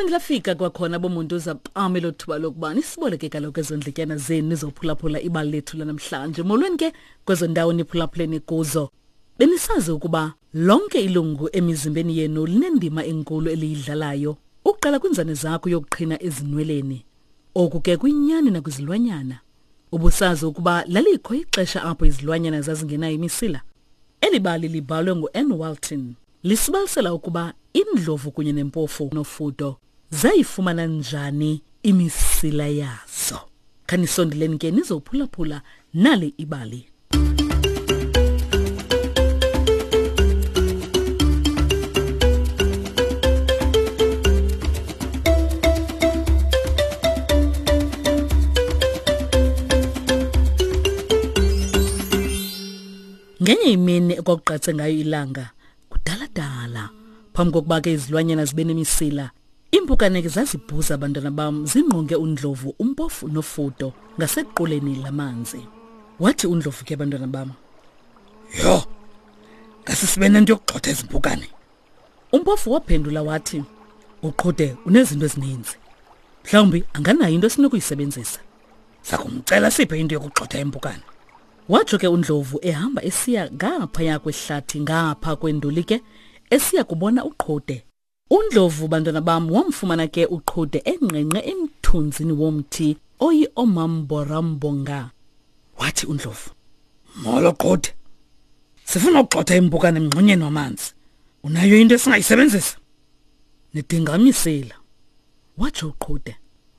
Laphinde lafika kwakhona bomuntu zapame lo thuba lokuba nisiboleke kaloku ezo ndletyana zenu nizophulaphula ibali lethu lanamhlanje. Molweni ke kwezo ndawo niphulaphuleni kuzo. Benisazi ukuba lonke ilungu emizimbeni yenu linendima enkulu eliyidlalayo ukuqala kwinzane zakho yokuqhina ezinweleni. Oku ke kuyinyani nakwizilwanyana. Ubusazi ukuba lalikho ixesha apho izilwanyana zazingenayo imisila? Eli bali libhalwe ngu-Ann Walton. Lisibalisela ukuba indlovu kunye nempofu nofudo zayifumana njani imisila yazo. Khanisondeleni ke nizophulaphula nali ibali. Ngenye imini ekwakuqatse ngayo ilanga kudala-dala phambi kokuba ke izilwanyana zibe nemisila iimpukane ke zazibhuza abantwana bam zingqonge undlovu umpofu nofudo ngasequleni lamanzi wathi undlovu ke abantwana bam yho ngase sibe nento yokugxotha ezi mpukane umpofu waphendula wathi uqhude unezinto ezininzi mhlawumbi anganayo into esinokuyisebenzisa sakumcela siphe into yokugxotha impukane Watsho ke uNdlovu ehamba esiya ngaphaya kwehlathi ngapha kwenduli ke esiya kubona uQhude. UNdlovu bantwana bam wamfumana ke uQhude engqengqe emthunzini womthi oyi-omamborambonga. Wathi uNdlovu, Molo Qhude. Sifuna ukugxotha impukane emngxunyeni wamanzi. Unayo into esingayisebenzisa? Nidinga imisila. Watsho uQhude.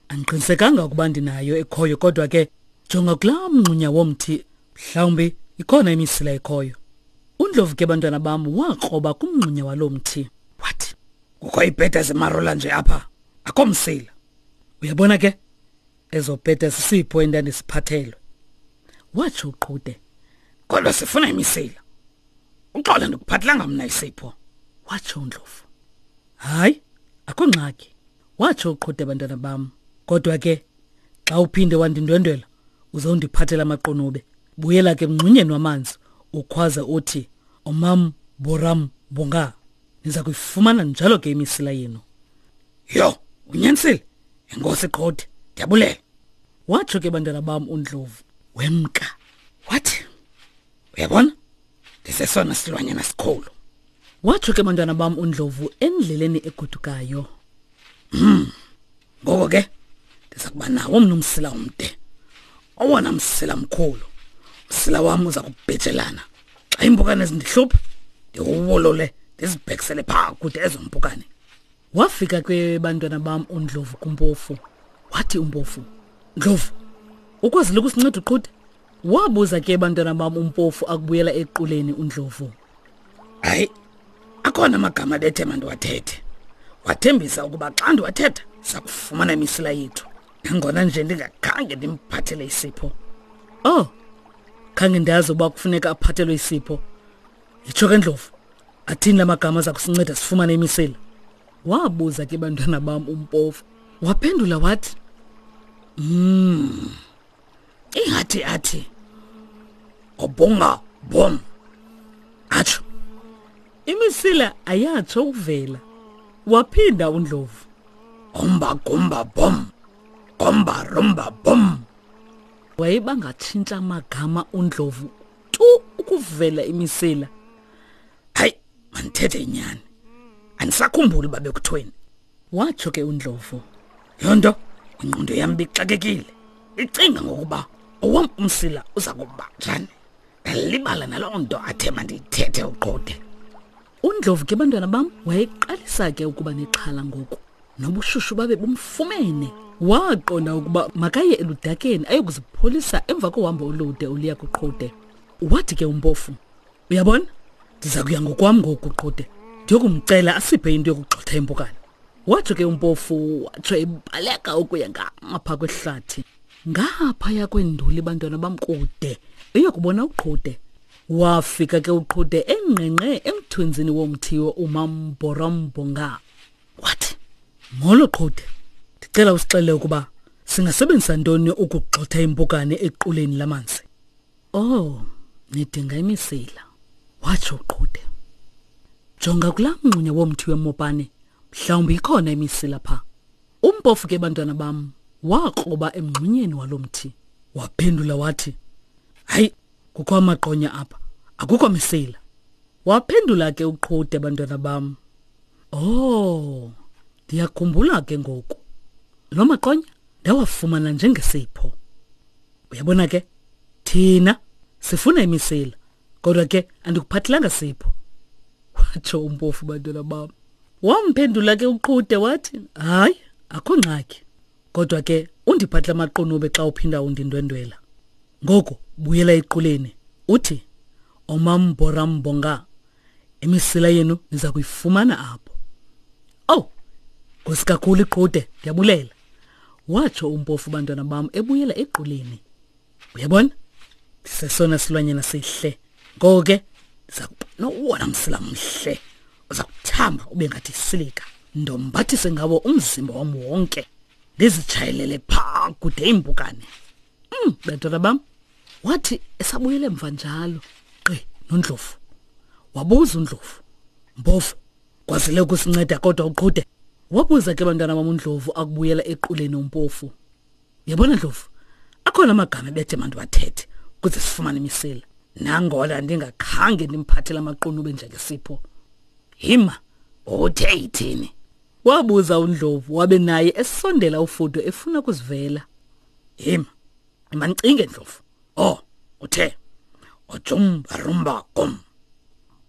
Andiqinisekanga ukuba ndinayo ekhoyo kodwa ke jonga kulaa mngxunya womthi mhlawumbi ikhona imisila ekhoyo. UNdlovu ke bantwana bam wakroba kumngxunya waloo mthi wathi kukho iibheda zemarola nje apha akho msila. Uyabona ke ezo bheda sisipho endandisiphathelwe. Watsho uQhude. Kodwa sifuna imisila. Uxolo ndikuphathelanga mna isipho. Watsho uNdlovu. Hayi, akho ngxaki. Watsho uqhude bantwana bam. Kodwa ke xa uphinde wandindwendwela uzondiphathela amaqunube. Buyela ke emngxunyeni wamanzi ukhwaze uthi omam boram bonga. Niza kuyifumana njalo ke imisila yenu. Yho, unyanisile. Enkosi Qhode, ndiyabulela. Watsho ke bantwana bam uNdlovu. Wemka. Wathi, uyabona ndisesona silwanyana sikhulu watsho ke bantwana bam undlovu endleleni egodukayo Ngoko ke ndiza kuba nawo mna umsila omde owona msila mkhulu umsila wam uza kubhejelana xa iimpukane zindihlupha ndiwuwolole ndizibhekisele phaa kude ezo mpukane Wafika ke bantwana bam uNdlovu kumpofu. Wathi umpofu, Ndlovu, ukwazile ukusinceda uqhude? Wabuza ke bantwana bam umpofu akubuyela equleni uNdlovu. Hayi, akhona amagama bethe mandiwathethe. Wathembisa ukuba xa ndiwathetha sakufumana imisila yethu. Nangona nje ndingakhange ndimphathele isipho. Oh, khange ndazi uba kufuneka aphathelwe isipho. Yitsho ke Ndlovu, athini la magama aza kusinceda sifumane imisila? Wabuza ke bantwana bam umpofu. Waphendula wathi, Ingathi athi obonga bom. Atsho. Imisila ayatsho ukuvela. Waphinda uNdlovu. Omba gomba bom. Gomba romba bom. Wayebangatshintsha amagama uNdlovu tu ukuvela imisila. Hayi, mandithethe inyani. Andisakhumbuli uba bekuthweni. Watsho ke uNdlovu. Yonto ingqondo yam bixakekile. Icinga ngokuba owam umsila uza kuba njani. Ndalibala naloo nto athe mandiyithethe uqode. UNdlovu ke bantwana bam wayeqalisa ke ukuba nexhala ngoku. Nobushushu babe bumfumene. Waqonda ukuba makaye eludakeni ayokuzipholisa emva kohambo olude oluya kuqhude. Wathi ke umpofu, uyabona ndiza kuya ngokwam ngoku qhude ndiyokumcela asiphe into yokugxotha impukane. Watsho ke umpofu watsho ebaleka ukuya ngapha kwehlathi. Ngaphaya kwenduli bantwana bam kude eyokubona uqhude. Wafika ke uqhude engqengqe emthunzini womthi umambhorombonga. Wathi, Molo qhude, ndicela usixelele ukuba singasebenzisa ntoni ukugxotha impukane equleni lamanzi. Oh, nidinga imisila, watsho uqhude. Jonga kulaa mngxunya womthi wemopane, mhlawumbi ikhona imisila pha. Umpofu ke bantwana bam wakroba emngxunyeni walo mthi. Waphendula wathi, "Hayi, kukho amaqonya apha, akukho misila." Waphendula ke uQhude bantwana bam, "Oh, ndiyakhumbula ke ngoku. Lo maqonya ndawafumana njengesipho. Uyabona ke, thina sifuna imisila, kodwa ke andikuphathelanga sipho." Watsho umpofu bantwana bam. Wamphendula ke uQhude wathi, "Hayi, akho ngxaki. Kodwa ke undiphathele amaqunube xa uphinda undindwendwela. Ngoku buyela equleni uthi omamborambonga imisila yenu niza kuyifumana apho. Oh, nkosi kakhulu iqhude, ndiyabulela. Watsho umpofu bantwana bam ebuyela equleni. Uyabona? Ndisesona silwanyana sihle. Ngoko ke ndiza kuba nowona msila mhle. Uza kuthamba ube ngathi isilika. Ndombathise ngawo umzimba wam wonke. Ndizitshayelele phaa kude iimpukane. Bantwana bam, wathi esabuyele emva njalo gqi noNdlovu. Wabuza uNdlovu, Mpofu, kwazile ukusinceda kodwa uqhude? Wabuza ke bantwana bam uNdlovu akubuyela equleni uMpofu. Yabona Ndlovu, akhona amagama ebethe mandiwathethe ukuze sifumane imisila. Nangona ndingakhange ndimphathele amaqunube njengesipho. Hima, uthe ithini? Wabuza uNdlovu wabe naye esondela uFudo efuna ukuzivela. Hima, mandicinge Ndlovu. Oh, uthe ojumba rumba gum.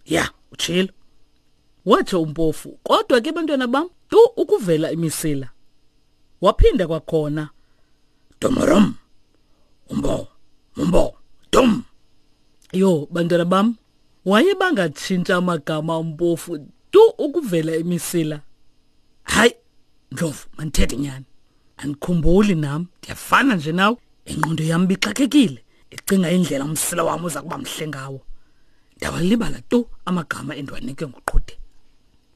Ya, utshilo. Watsho uMpofu, kodwa ke bantwana bam, tu ukuvela imisila. Waphinda kwakhona, Domorom, umbo, umbo, dum. Yho, bantwana bam, wayebangatshintsha amagama uMpofu tu ukuvela imisila. Hayi, Ndlovu, mandithethe nyani. Andikhumbuli nam, ndiyafana nje nawe. Ingqondo yam bixakekile, icinga indlela umsila wam uza kuba mhle ngawo. Ndawalibala tu amagama endiwanike nguQhude.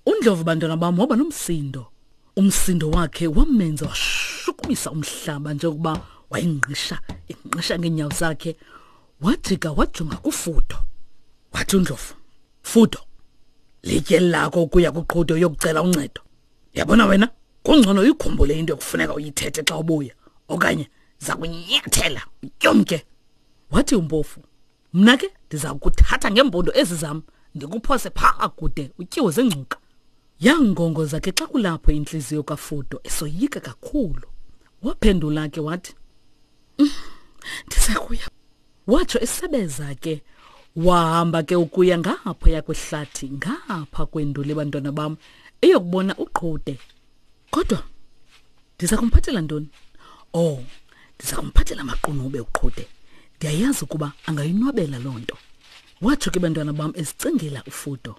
UNdlovu bantwana bam waba nomsindo. Umsindo wakhe wamenza washukumisa umhlaba njengokuba wayengqisha engqisha ngeenyawo zakhe. Wajika wajonga kuFudo. Wathi uNdlovu, Fudo, litye lakho ukuya kuQhude uyokucela uncedo. Yabona wena, kungcono uyikhumbule into ekufuneka uyithethe xa ubuya, okanye zakunyathela utyomke. Wathi uMpofu, Mna ke ndiza kuthatha ngeempondo ezi zam ndikuphose phaa kude utyiwe zingcuka. Yangongoza ke xa kulapho intliziyo kaFudo esoyika kakhulu. Waphendula ke wathi, Ndiza kuya. Watsho esebeza ke. Wahamba ke ukuya ngaphaya kwehlathi, ngapha kwenduli bantwana bam, eyokubona uQhude. Kodwa ndiza kumphathela ntoni? Oh, ndiza kumphathela amaqunube uQhude. Ndiyayazi ukuba angayinwabela loo nto. Watsho ke bantwana bam ezicingela uFudo.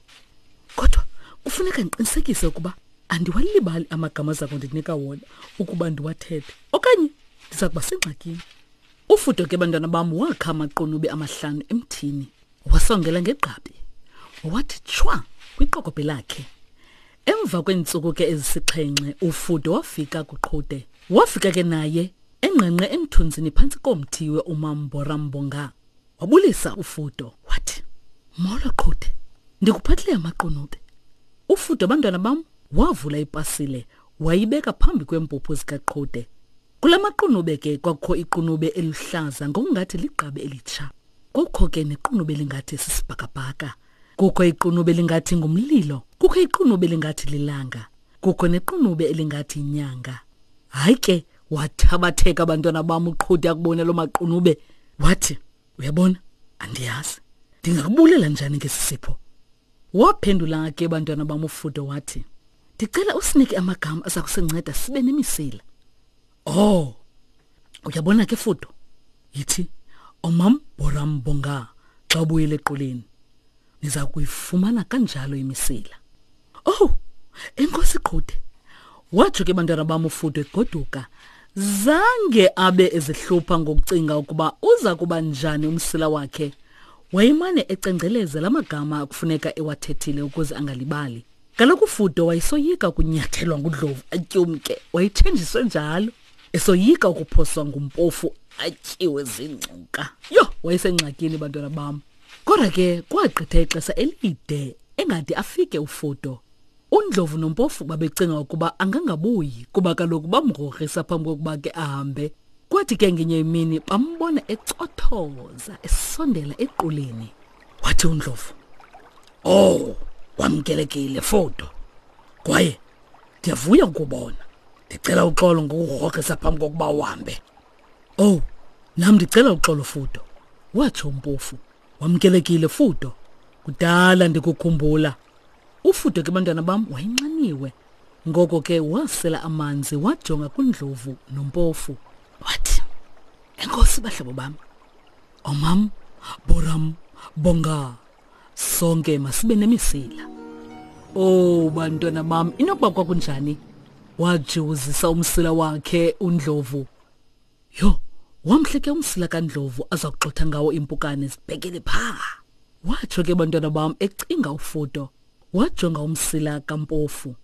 Kodwa kufuneka ndiqinisekise ukuba andiwalibali amagama aza kundinika wona ukuba ndiwathethe, okanye ndiza kuba sengxakini. Ufudo ke bantwana bam wakha amaqunube amahlanu emthini, wasongela ngegqabi, wathi tshwa kwiqokobhe lakhe. Emva kweentsuku ke ezisixhenxe uFudo wafika kuQhude. Wafika ke naye engqengqe emthunzini phantsi komthi we-Umamborambonga. Wabulisa uFudo wathi, Molo Qhude, ndikuphathele amaqunube. UFudo bantwana bam wavula ipasile wayibeka phambi kweempuphu zikaQhude. Kula maqunube ke kwakukho iqunube eluhlaza ngokungathi ligqabi elitsha. Kukho ke nequnube elingathi sisibhakabhaka. Kukho iqunube elingathi ngumlilo. Kukho iqunube elingathi lilanga. Kukho nequnube elingathi inyanga. Hayi ke wathabatheka abantwana bam uQhude akubona loo maqunube. Wathi, uyabona, andiyazi. Ndingakubulela njani ngesi sipho? Waphendula ke bantwana bam uFudo wathi, ndicela usinike amagama aza kusinceda sibe nemisila. Oh, uyabona ke Fudo, yithi omam boram bonga xa ubuyele equleni. Niza kuyifumana kanjalo imisila. Oh, enkosi Qhude. Watsho ke bantwana bam uFudo egoduka. Zange abe ezihlupha ngokucinga ukuba uza kuba njani umsila wakhe. Wayemane ecengceleza la magama akufuneka ewathethile ukuze angalibali. Kaloku uFudo wayesoyika ukunyathelwa nguDlovu atyumke, wayethenjiswe njalo. Esoyika ukuphoswa ngumpofu atyiwe zingcuka. Yho, wayesengxakini bantwana bam. Kodwa ke kwagqitha ixesha elide engade afike uFudo. UNdlovu noMpofu babecinga ukuba angangabuyi kuba kaloku bamgrogrisa phambi kokuba ke ahambe. Kwathi ke ngenye imini bambona ecothoza esondela equleni. Wathi uNdlovu, "Oh, wamkelekile Fodo. Kwaye ndiyavuya ukubona. Ndicela uxolo ngokugrogrisa phambi kokuba uhambe." "Oh, nam ndicela uxolo Fudo," watsho uMpofu. "Wamkelekile Fudo. Kudala ndikukhumbula." Ufudo ke bantwana bam wayenxaniwe. Ngoko ke wasela amanzi wajonga kuNdlovu noMpofu. Wathi, "Enkosi bahlobo bam. Omam, Boram, Bonga. Sonke masibe nemisila." Oh bantwana bam, inokuba kwakunjani? Wajiwuzisa umsila wakhe uNdlovu. Yho, wamhle ke umsila kaNdlovu aza kuxotha ngawo impukane zibhekele phaa. Watsho ke bantwana bam ecinga uFudo. Wajonga umsila kaMpofu.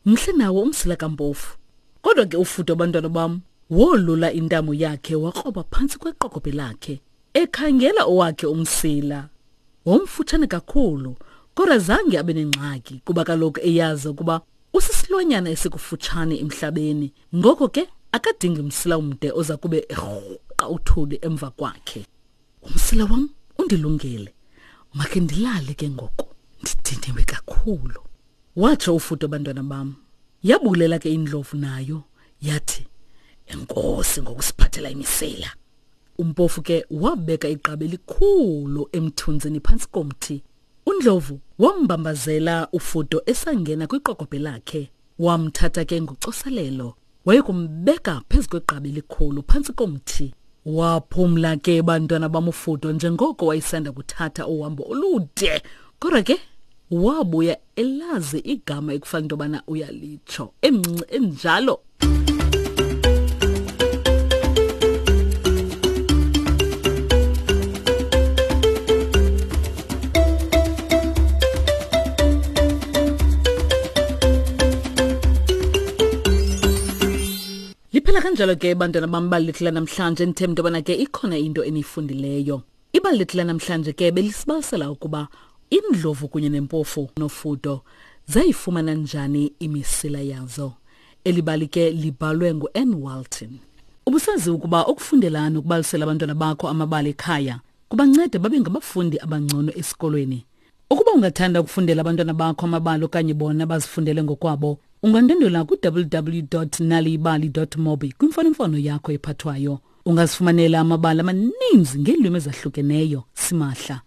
Mhle nawo umsila kaMpofu. Kodwa ke uFudo bantwana bam wolula intamo yakhe wakroba phantsi kweqokobhe lakhe ekhangela owakhe umsila. Womfutshane kakhulu, kodwa zange abe nengxaki kuba kaloku eyazi ukuba usisilwanyana esikufutshane emhlabeni, ngoko ke akadingi msila umde oza kube erhuqa uthuli emva kwakhe. Umsila wam undilungele, makhe ndilale ke ngoku, ndidiniwe kakhulu, watsho uFudo bantwana bam. Yabulela ke indlovu nayo yathi, Enkosi ngokusiphathela imisila. Umpofu ke wabeka igqabi elikhulu emthunzini phantsi komthi. UNdlovu wambambazela uFudo esangena kwiqokobhe lakhe. Wamthatha ke ngocoselelo wayekumbeka phezu kwegqabi elikhulu phantsi komthi. Waphumla ke bantwana bamufudo njengoko wayesanda kuthatha uhambo olude. Kodwa ke wabuya elazi igama ekufanele into yobana uyalitsho, emncinci enjalo. Liphela kanjalo ke bantwana bam ibali lethu lanamhlanje. Ndithemba into yobana ke ikhona into eniyifundileyo. Ibali lethu lanamhlanje ke belisibalisela ukuba indlovu kunye nempofu nofudo zayifumana njani imisila yazo. Eli bali ke libhalwe ngu-Ann Walton. Ubusazi ukuba ukufundela nokubalisela abantwana bakho amabali ekhaya kubanceda babe ngabafundi abangcono esikolweni. Ukuba ungathanda ukufundela abantwana bakho amabali okanye bona bazifundele ngokwabo, ungandwendwela ku-www.naliyibali.mobi kwimfonomfono yakho ephathwayo. Ungazifumanela amabali amaninzi ngeelwimi ezahlukeneyo simahla.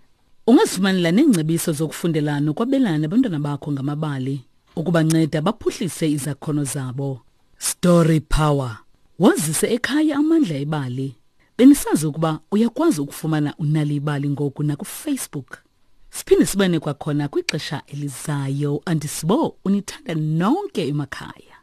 Ungazifumanela neengcebiso zokufundela nokwabelana nabantwana bakho ngamabali ukubanceda baphuhlise izakhono zabo. Story Power. Wazise ekhaya amandla ebali. Benisazi ukuba uyakwazi ukufumana uNal'ibali ngoku nakuFacebook. Siphinde sibane kwakhona kwixesha elizayo. Andisibo unithanda nonke emakhaya.